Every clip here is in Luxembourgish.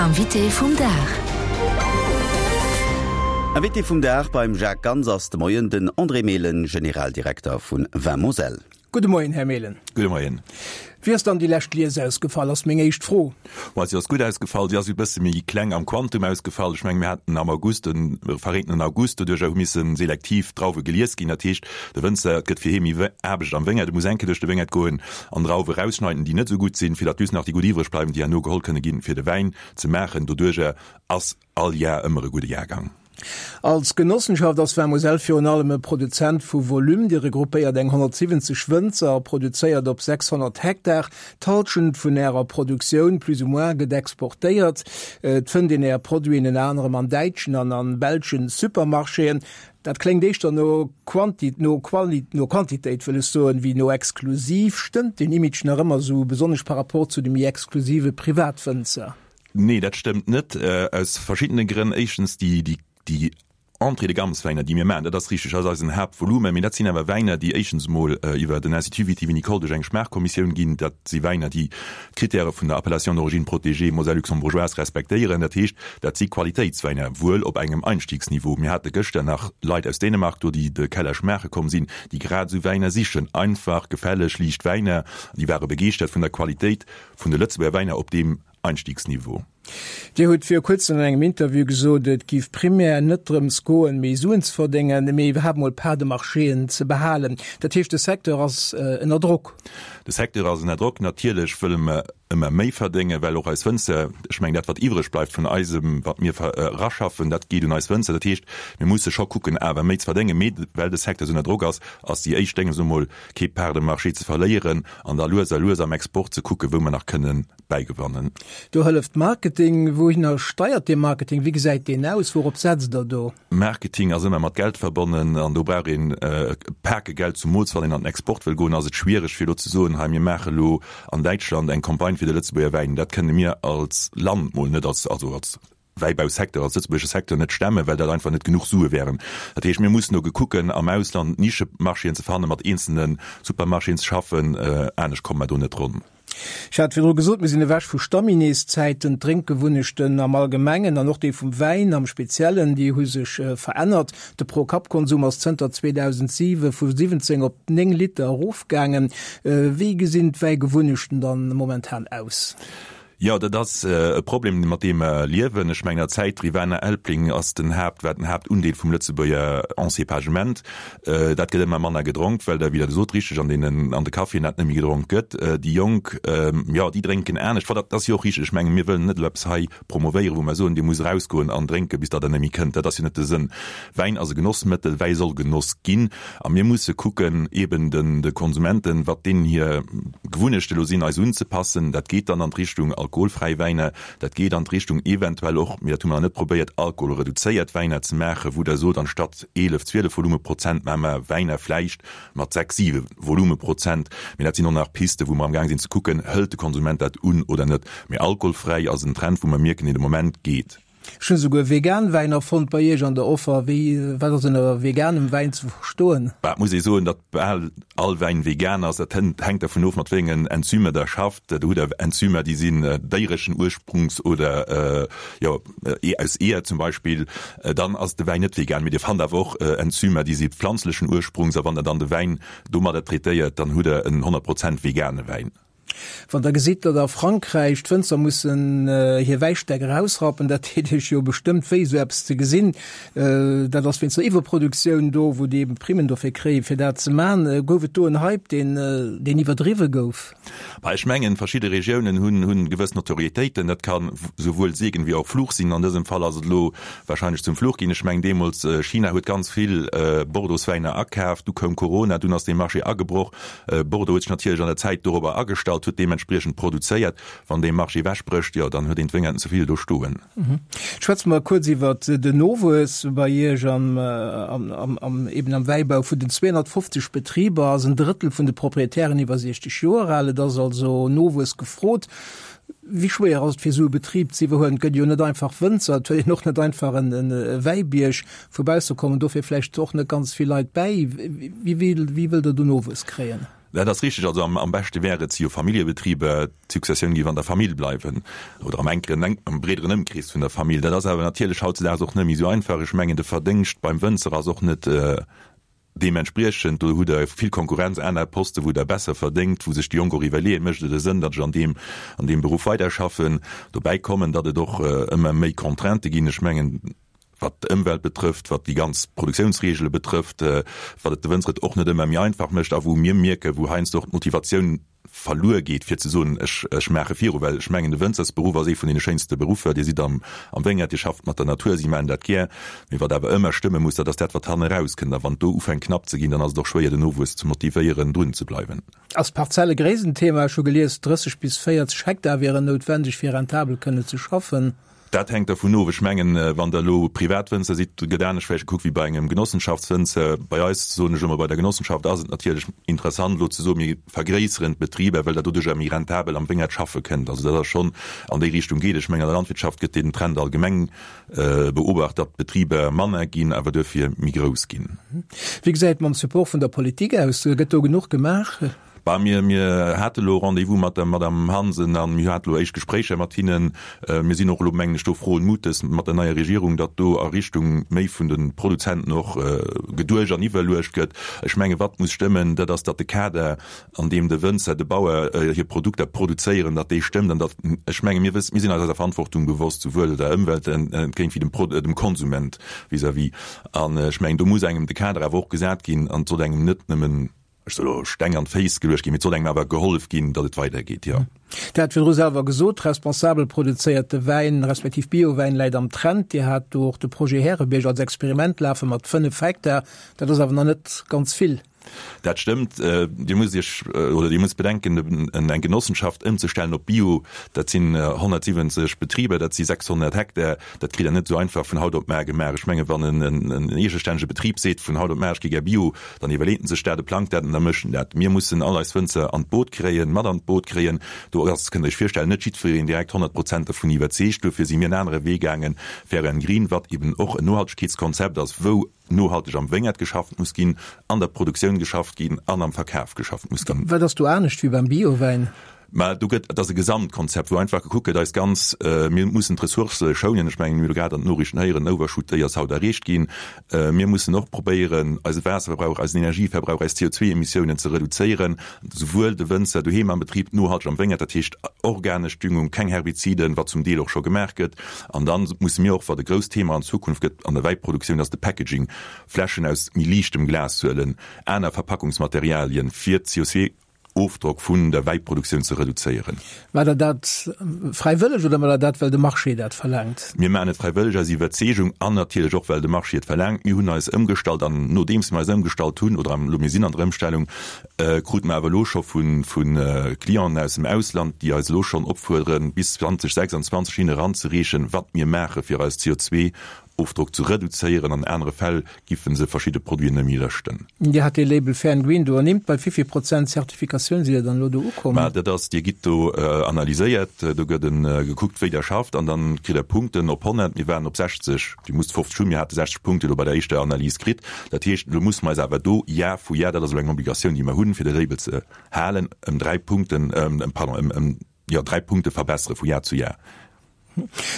Invité vum Dag. Invité vum Dag beim Jacques Ganz ass de Moien den André Mehlen, Generaldirekter vun Vin Moselle. Gudde Moien, Här Mehlen. Gudde Moien. Wéi ass dann déi lescht Lies ausgefall, ass meng éischt Fro. Bon, si ass gutt ausgefall. Si ass e bësse méi kleng am Quantum ausgefall. Ech mengen, mir haten am August e verreentenen August, doduercher hu misse selektiv Drauwe gelies ginn. Dat heescht, de Wënzer, et gëtt fir hie méi Aarbecht am Wéngert, e muss eng Kéier duerch de Wéngert goen an Drauwe rausschneiden, déi net esou gutt sinn, fir datt just nach déi gutt iwwreg bleiwen, déi herno geholl kënne ginn, fir de Wäin ze maachen. Doduercher ass all Jar ëmmer e gudde Jahrgang. Als Genossenschaft ass Vin Moselle virun allem e Produzent vu Volume. Dir regroupéiert eng 170 Wënzer a produzéiert op 600 Hektar. D'Hallschent vun Ärer Produktioun, plus ou moins, gëtt exportéiert. Et fënnt een Är Produiten ënner anerem an däitschen an an belschen Supermarchéen. Dat kléngt éischter no Quanti-, no Quali-, no Quantitéit wëll ech soen, wéi no exklusiv. Stëmmt deen Image nach ëmmer esou, besonnesch par rapport zu de méi exklusive Privatwënzer? Nee, dat stëmmt net, aus verschiddene Grënn. Éischtens, déi, déi, déi Entrée de gamme-Wäiner, déi mir maachen, dat ass richteg, dat ass eisen Haaptvolumen, mee dat sinn awer Wäiner, déi éischtens emol iwwer den Institut viti-vinicole duerch eng Schmaachkommissioun ginn. Dat si Wäiner, déi d'Kritäre vun der Appellation d'origine protégée Moselle luxembourgeoise respektéieren. Dat heescht, dat si Qualitéitswäiner, wuel op engem Einstiegsniveau. Mir hate gëschter nach Leit aus Dänemark do, déi de Keller schmaache komm sinn, déi grad esou Wäiner sichen, einfach, gefälleg, liicht Wäiner. Déi ware begeeschtert vun der Qualitéit vun de Lëtzebuerger Wäiner op deem Einstiegsniveau. Dir hutt viru kuerzem an engem Interview gesot, et giff primär net drëms goen, méi Suen ze verdéngen, mee iwwerhaapt mol Part de marchéen ze behalen. Dat heescht, de Secteur ass ënner Drock? De Secteur ass ënner Drock. Natierlech wëlle mer ëmmer méi verdéngen, well och eis Wënzer, ech mengen dat wat iwwreg bleift vun eisem, wat mir eraschaffen, dat geet un eis Wënzer. Dat heescht, mir musse scho kucken awer méi ze verdéngen. Mee well de Secteur esou ënner Drock ass, ass déi éischt Dénges emol kee Part de marché ze verléieren an da lues a lues am Export ze kucken, wou mer nach kënnen bäigewannen. Do hëlleft Marketing. Wouhinner steiert dee Marketing? Wéi gesäit deen aus? Wourop setzt Der do? Marketing ass ëmmer mat Geld verbonnen an do brauch een e Pake Geld, zumools wann een an den Export wëll goen, ass et schwiereg fir elo ze soen, hei mir maache elo an Däitschland eng Campagne fir de Lëtzebuerger Wäin. Dat kënne mir als Land mol net, als, also als Wäibausecteur, als lëtzebuergesche Secteur net stemmen, well dat einfach net genuch Sue wären. Dat heescht, mir mussen do gekucken, am Ausland Nischemarchéen ze fannen, mat eenzelne Supermarchéen ze schaffen, anescht komme mer do net ronn. Ech hat virdru gesot, mir sinn ewech vu Stammineeszäiten. D'Drénkgewunnechten am Allgemengen an och déi vum Wäin am Speziellen, déi hu sech verännert. De Pro-Kapp-Konsum ass zënter 2007 vu 17 op 9 Liter erofgaangen. Wéi gesinn d'Wäigewunnechten dann momentan aus? Jo, dat ass e Problem, mat deem mer liewen. Ech mengen, der Zäit Rivaner Elbling ass den Haapt, war den Haaptundeel vum Lëtzebuerger Encépagement. Dat gëtt ëmmer manner gedronk, well der, wéi Der gesot, richteg, an deenen, an de Caféen dat net méi gedronk gëtt. Déi Jonk, jo, déi drénken anescht. Wat, dat ass jo och richteg. Ech mengen, mir wëllen net elo eppes hei promovéieren, wou mer soen, Dir musst erausgoen an drénken, bis datt Der net méi kënnt. Dat ass jo net de Sënn. Wäin ass e Genossmëttel, Wäi soll genoss ginn. A mir musse kucken, eeben de Konsumenten, wat deenen hir Gewunnechte elo sinn, eis unzepassen. Dat geet dann an d'Richtung alkoholfräi Wäiner, dat geet an d'Richtung eventuell och, mee dat hu mer nach net probéiert, alkoholreduzéiert Wäiner ze maachen, wou Der sot, anstatt 11, 12 Volumeprozent maache mer Wäiner vläicht mat 6, 7 Volumeprozent. Mee dat sinn och nach Pisten, wou mer amgaang sinn ze kucken, hëlt de Konsument dat un oder net. Mee alkoholfräi ass en Trend, wou mer mierken, deen de Moment geet. Ech hunn esouguer vegan Wäiner fonnt bei iech an der Offer. Wéi, wat ass ënner veganem Wäin ze verstoen? Bah, et muss ee soen, datt bal all Wäin vegan ass. Dat hänkt dervun of, mat wéi engen Enzymer der schafft. Do hutt der Enzymer, déi sinn déiereschen Ursprungs oder jo aus Eeër zum Beispill. Dann ass de Wäin net vegan. Mee dir fannt awer och Enzymer, déi si pflanzlechen Ursprungs. A wann der dann de Wäin domadder traitéiert, dann hutt der en 100 Prozent vegane Wäin. Wann Der gesitt, datt a Frankräich d'Wënzer mussen hir Wäistäck erausrappen, dat deet Iech jo bestëmmt wéi, esou eppes ze gesinn. Dat ass wéinst der Iwwerproduktioun do, wou déi eben Primmen dofir kréien, fir dat ze man. Gouf et do en Hype, deen, deen iwwerdriwwe gouf? Bah, ech mengen, verschidde Regiounen hunn, hunn gewëss Notorietéiten. Dat ka souwuel Segen wéi och Fluch sinn. An dësem Fall ass et elo wahrscheinlech zum Fluch ginn. Ech mengen, deemools, China huet ganz vill Bordeauxwäiner akaaft, du koum Corona, dunn ass dee Marché agebroch. Bordeaux huet sech natierlech an der Zäit dorobber agestallt, huet deementspriechend produzéiert. Wann dee Marché ewechbrécht, jo, dann huet een d'Wéngerten ze vill do stoen. Schwätze mer kuerz iwwert den Nowuess bei Iech am, am, eben am Wäibau. Vun den 250 Betriber ass en Drëttel vun de Proprietären iwwer 60 Joer al. Et ass also Nowuess gefrot. Wéi schwéier ass et fir esou e Betrib ze iwwerhuelen? Et gëtt jo net einfach Wënzer, et huet een och net einfach en Wäibierg. Vu bausse kommen dofir vläicht och net ganz vill Leit bäi. Wéi wëllt Der do Nowuess kréien? Dat ass richteg. Also am beschte wär et, si jo Familljebetriber, d'Successioun géif an der Famill bleiwen oder am enkeren, am breederen Ëmkrees vun der Famill. Dat ass awer natierlech hautzedaags och net méi esou einfach. Ech mengen, de Verdéngscht beim Wënzer ass och net deementspriechend. Do hutt Der vill Konkurrenz, aner Posten, wou Der besser verdéngt, wou sech déi Jonk och iwwerleeën, Mécht et e Sënn, datt ech an deem, an deem Beruff weiderschaffen? Dobäi kommen, datt et och ëmmer méi Contraintë ginn. Ech mengen, wat d'Ëmwelt betrëfft, wat déi ganz Produktiounsregele betrëfft, wat et de Wënzer et och net ëmmer méi einfach mécht a wou mir mierken, wou heiansdo och d'Motivatioun verluer geet, fir ze soen, ech, ech maache viru. Well ech mengen, de Wënzersberuff ass ee vun deene schéinste Beruffer. Dir sidd am, am Wéngert, Dir schafft mat der Natur, si maachen dat gär. Mee wat awer ëmmer stëmme muss, dat ass dat, wat hannen erauskënnt. A wann et do ufänkt knapp ze ginn, dann ass et och schwéier, den Nowuess ze motivéieren, drun ze bleiwen. Ass d'Parzelle-Gréisst en Thema? Ech hu gelies, 30 bis 40 Hektar wieren noutwendeg, fir rentabel kënne ze schaffen. Dat hänkt dervun of. Ech mengen, wann Der elo Privatwënzer sidd, gëtt anescht vläicht gekuckt wéi bei engem Genossenschaftswënzer. Bei eis, soen ech elo mol, bei der Genossenschaft ass et natierlech interessant elo ze soen, mir vergréisseren d'Betriber, well Der doduercher méi rentabel am Wéngert schaffe kënnt. Also dat ass schonn an déi Richtung geet. Ech mengen, an der Landwirtschaft gëtt deen Trend allgemeng beobacht, datt d'Betriber manner ginn, awer duerfir méi grouss ginn. Wéi gesäit et mam Support vun der Politik aus? Gëtt do genuch gemaach? Bah, mir, mir hate elo Rendez-vous mat der Madame Hansen a mir hate elo éischt Gespréicher mat hinnen. Mir sinn och elo, mengen ech, do frohen Mutes mat der neier Regierung, datt do a Richtung méi vun de Produzenten och geduecht an iwwerluecht gëtt. Ech menge wat muss stëmmen, dat ass, datt de Kader, an deem de Wënzer, de Bauer hir Produkter produzéieren, datt dee stëmmt an datt, ech menge mir wëssen, mir sinn eis eiser Verantwortung bewosst, souwuel der Ëmwelt entgéint wéi dem Pro, dem Konsument vis-à-vis. An ech mengen, do muss engem de Kader awer och gesat ginn an et soll engem net nëmmen, Ech soll elo Steng an d'Féiss geluecht ginn, mee et soll engem awer gehollef ginn, datt et weidergeet, jo. Dir hat virdru selwer gesot, responsabel produzéierte Wäin, respektiv Biowäin läit am Trend. Dir hat do och de Projet Härebierg als Experiment lafe mat 5 Hektar. Dat ass awer nach net ganz vill. Dat stëmmt. Dir musst Iech oder Dir musst bedenken, eng Genossenschaft ëmzestellen op Bio, dat sinn 170 Betriber, dat si 600 Hektar. Dat kritt Der net esou einfach vun haut op mar gemaach. Ech menge wann en eegestännege Betrib seet, vun haut op mar, ech gi gär Bio, Dann iwwerleet en sech dat, e plangt dat an da mécht en dat. Mir mussen all eis Wënzer an d'Boot kréien, mat an d'Boot kréien. Do ass, kënnt Der Iech virstellen, net jiddwereen direkt 100 Prozent dovun iwwerzeegt. Duerfir si mir en anere Wee gaangen, Fair and Green, wat eben och en Nohaltegkeetskonzept ass, wou nohalteg am Wéngert geschafft muss ginn, an der Produktioun geschafft ginn an am Verkaf geschafft muss ginn. Wat ass do anescht wéi beim Biowäin? Mä do gëtt, et ass e Gesamtkonzept, wou einfach gekuckt gëtt, eis ganz, mir mussen d'Ressourcë schounen. Ech mengen, mir hu grad an den Noriichten héieren, den Overshoot, déi ass haut erreecht ginn. Mir mussen och probéieren, eise Waasserverbrauch, eisen Energieverbrauch, eis CO2-Emissiounen ze reduzéieren, souwuel de Wënzer doheem am Betrib, nohalteg am Wéngert, dat heescht organesch Düngung, keng Herbiziden, wat zum Deel och scho gemaach gëtt. An da musse mir och, wat e grousst Thema an Zukunft gëtt an der Wäiproduktioun, ass de Packaging, Fläschen aus méi liichtem Glas huelen, aner Verpackungsmaterialien, fir d'CO2 Ofdrock vun der Wäiproduktioun ze reduzéieren. Maacht Der dat fräiwëlleg oder maacht Der dat, well de Marché dat verlaangt? Mir maachen et fräiwëlleg aus Iwwerzeegung an natierlech och, well de Marché et verlaangt. Mir hunn eis ëmgestallt an nodeems mir eis ëmgestallt hunn, oder elo mir sinn an der Ëmstellung, krute mer awer elo scho vu Clienten aus dem Ausland, déi eis elo schonn opfuerderen, bis 2026 hinne eranzereechen, wat mir maache fir eis CO2 Ofdrock ze reduzéieren, an anere Fäll giffen se verschidde Produiten net méi lëschten. Dir hat dee Label Fair and Green do ernimmt. Bei wéi vill Prozent Zertifikatioun sidd Dir dann elo do ukomm? Mä dat ass, Dir gitt do analyséiert, do gëtt gekuckt, wéi Der schafft an dann kritt Der Punkten op 100. Mir waren op 60, Dir musst 50 hunn, mir hate 60 Punkte elo bei der éischter Analys kritt. Dat heescht, elo musse mer eis awer do Jar vu Jar, dat ass elo eng Obligatioun, déi mer hunn, fir de Label ze halen, ëm dräi Punkten, pardon, ëm, jo, dräi Punkte verbessere vu Jar zu Jar.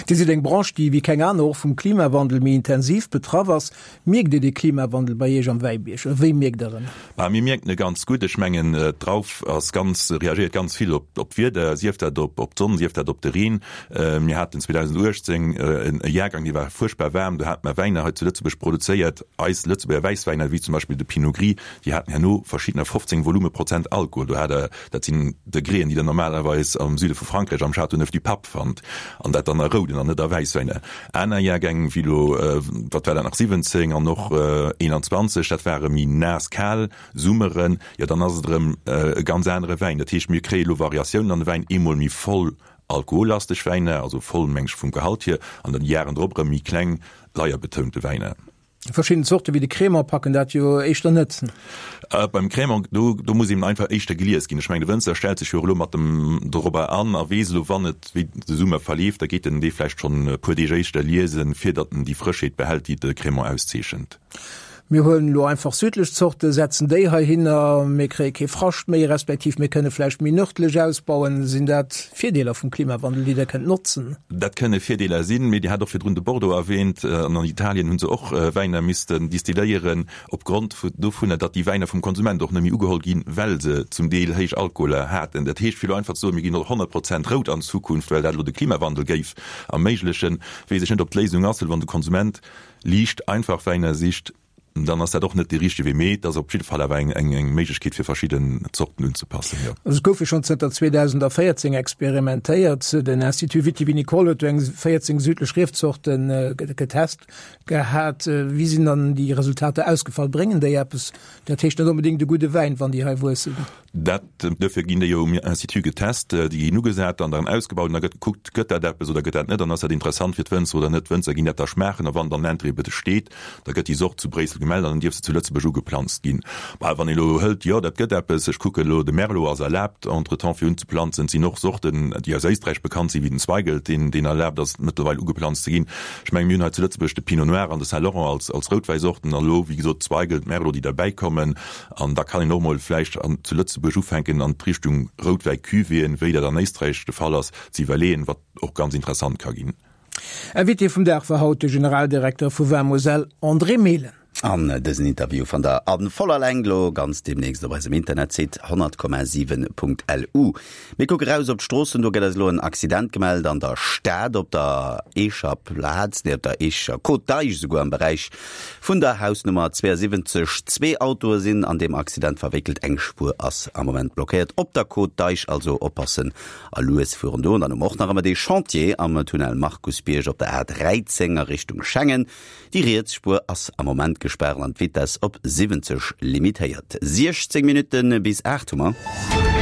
Dir sidd eng Branche, déi wéi keng aner och vum Klimawandel méi intensiv betraff ass. Mierkt Dir de Klimawandel bei Iech am Wäibierg oder wéi mierkt Der en? Bah, mir mierken e ganz gutt. Ech mengen, d'Drauf ass ganz, reagéiert ganz vill op d'Wieder, sief dat op d'Sonn, sief dat op de Reen. Mir haten 2018 e Jahrgang, dee war fuerchtbar waarm. Do hate mer Wäiner hei zu Lëtzebuerg produzéiert, eis Lëtzebuerger Wäisswäiner, wéi zum Beispill de Pinot Gris, déi haten herno verschiddener 15 Volumeprozent Alkohol. Do hat Der, dat sinn Degréen, déi Der normalerweis am Süde vu Frankräich am Châteauneuf-du-Pape fannt, an dat dann a rouden an net a Wäisswäiner. Aner Jahrgäng, wéi elo, wat war dat nach, 17 an och 21, dat ware méi naass, kal Summeren, jo dann ass et erëm e ganz anere Wäin. Dat heescht, mir kréie elo Variatiounen an de Wäin, eemol méi voll alkohollasteg Wäiner, also voll meng ech vum Gehalt hier, an dann déi Jaren drop erëm méi kleng, leierbetounte Wäiner. Verschidden Zorte wéi de Crémant packen dat jo éischter net. Beim Crémant, do, do muss eben einfach éischter gelies ginn. Ech mengen, de Wënzer stellt sech jo och elo mat dem dorobber an a weess elo, wann et, wéi de Summer verleeft, da geet en dee vläicht schonn e puer Deeg éischter liesen, fir datt en déi Frëschheet behält, déi de Crémant auszeechent. Mir huelen elo einfach südlech Zorte, setzen déi heihinner, mir kréie kee Frascht méi, respektiv mir kënne vläicht méi nërdlech ausbauen. Sinn dat Virdeeler vum Klimawandel, déi Der kënnt notzen? Dat kënne Virdeeler sinn, mee Dir hat och virdrun de Bordeaux erwähnt. An an Italien hu se och Wäiner missten distilléieren, opgrond dovunner, datt déi Wäiner vum Konsument och net méi ugeholl ginn, well se zum Deel héich Alkoholer haten. Dat heescht, fir elo einfach ze soen, mir ginn op 100 Prozent rout an Zukunft, well dat elo de Klimawandel géif erméiglechen, weess ech net, ob d'Léisung ass, well wann de Konsument liicht einfach Wäiner sicht, dann ass dat och net dee richtege Wee, mee et ass op jidde Fall awer eng eng Méiglechkeet fir verschidden Zorten unzepassen, jo. Also et gouf jo schonn zënter 2014 experimentéiert. Den Institut Viti-Vinicole huet do eng 14 südlech Riefzorte getest gehat. Wéi sinn dann déi Resultater ausgefall? Bréngen déi eppes? Dat heescht net onbedéngt e gudde Wäin, wann déi hei wuessen. Dat, duerfir ginn déi jo um Institut getest, déi ginn ugesat an dann ausgebaut an da gëtt gekuckt, gëtt dat eppes oder gëtt dat net an ass dat interessant fir d'Wënzer oder net. D'Wënzer ginn dat da schmaachen a wann dann Interêt besteet, da gëtt déi Sort zu Bréissel gemellt an dann dierf se zu Lëtzebuerg ugeplanzt ginn. Bah, wann ee elo hëlt, jo dat gëtt eppes, ech kucken elo, de Merlot ass erlaabt entretemps fir unzeplanzen, et sinn och Sorten, déi aus Éisträich bekannt sinn, wéi den Zweigelt, deen, deen erlaabt ass mëttlerweil ugeplanzt ze ginn. Ech mengen, mir hunn hei zu Lëtzebuerg de Pinot Noir an de Saint Laurent als, als Routwäisorten an elo, wéi gesot, Zweigelt, Merlot, déi derbäikommen. An da kann een och mol vläicht an zu Lëtzebuerg ufänken an d'Richtung Routwäi-Cuvée, wéi dat an Éisträich de Fall ass, ze iwwerleeën, wat och ganz interessant ka ginn. Invité vum Dag war haut de Generaldirekter vu Vin Moselle, André Mehlen. An dësen Interview fannt der a voller Längt lo ganz demnächst op eisem Internetsite 100,7.lu. Mir kucke raus op d'Stroossen, do gëtt eis elo en Accident gemellt an der Stad op der Eecher Plaz, nee op der Eecher Côte d'Eich esouguer am Beräich vun der Hausnummer 72. Zwee Autoe sinn an deem Accident verwéckelt, eng Spuer ass am Moment blockéiert op der Côte d'Eich, also oppassen a lues fueren do. An dann hu mer och nach ëmmer dee Chantier am Tunnel Markusbierg op der A13 a Richtung Schengen. Déi riets Spuer ass am Moment gespaart an d'Vitess op 70 limitéiert. 16 Minutte bis 8 hu mer.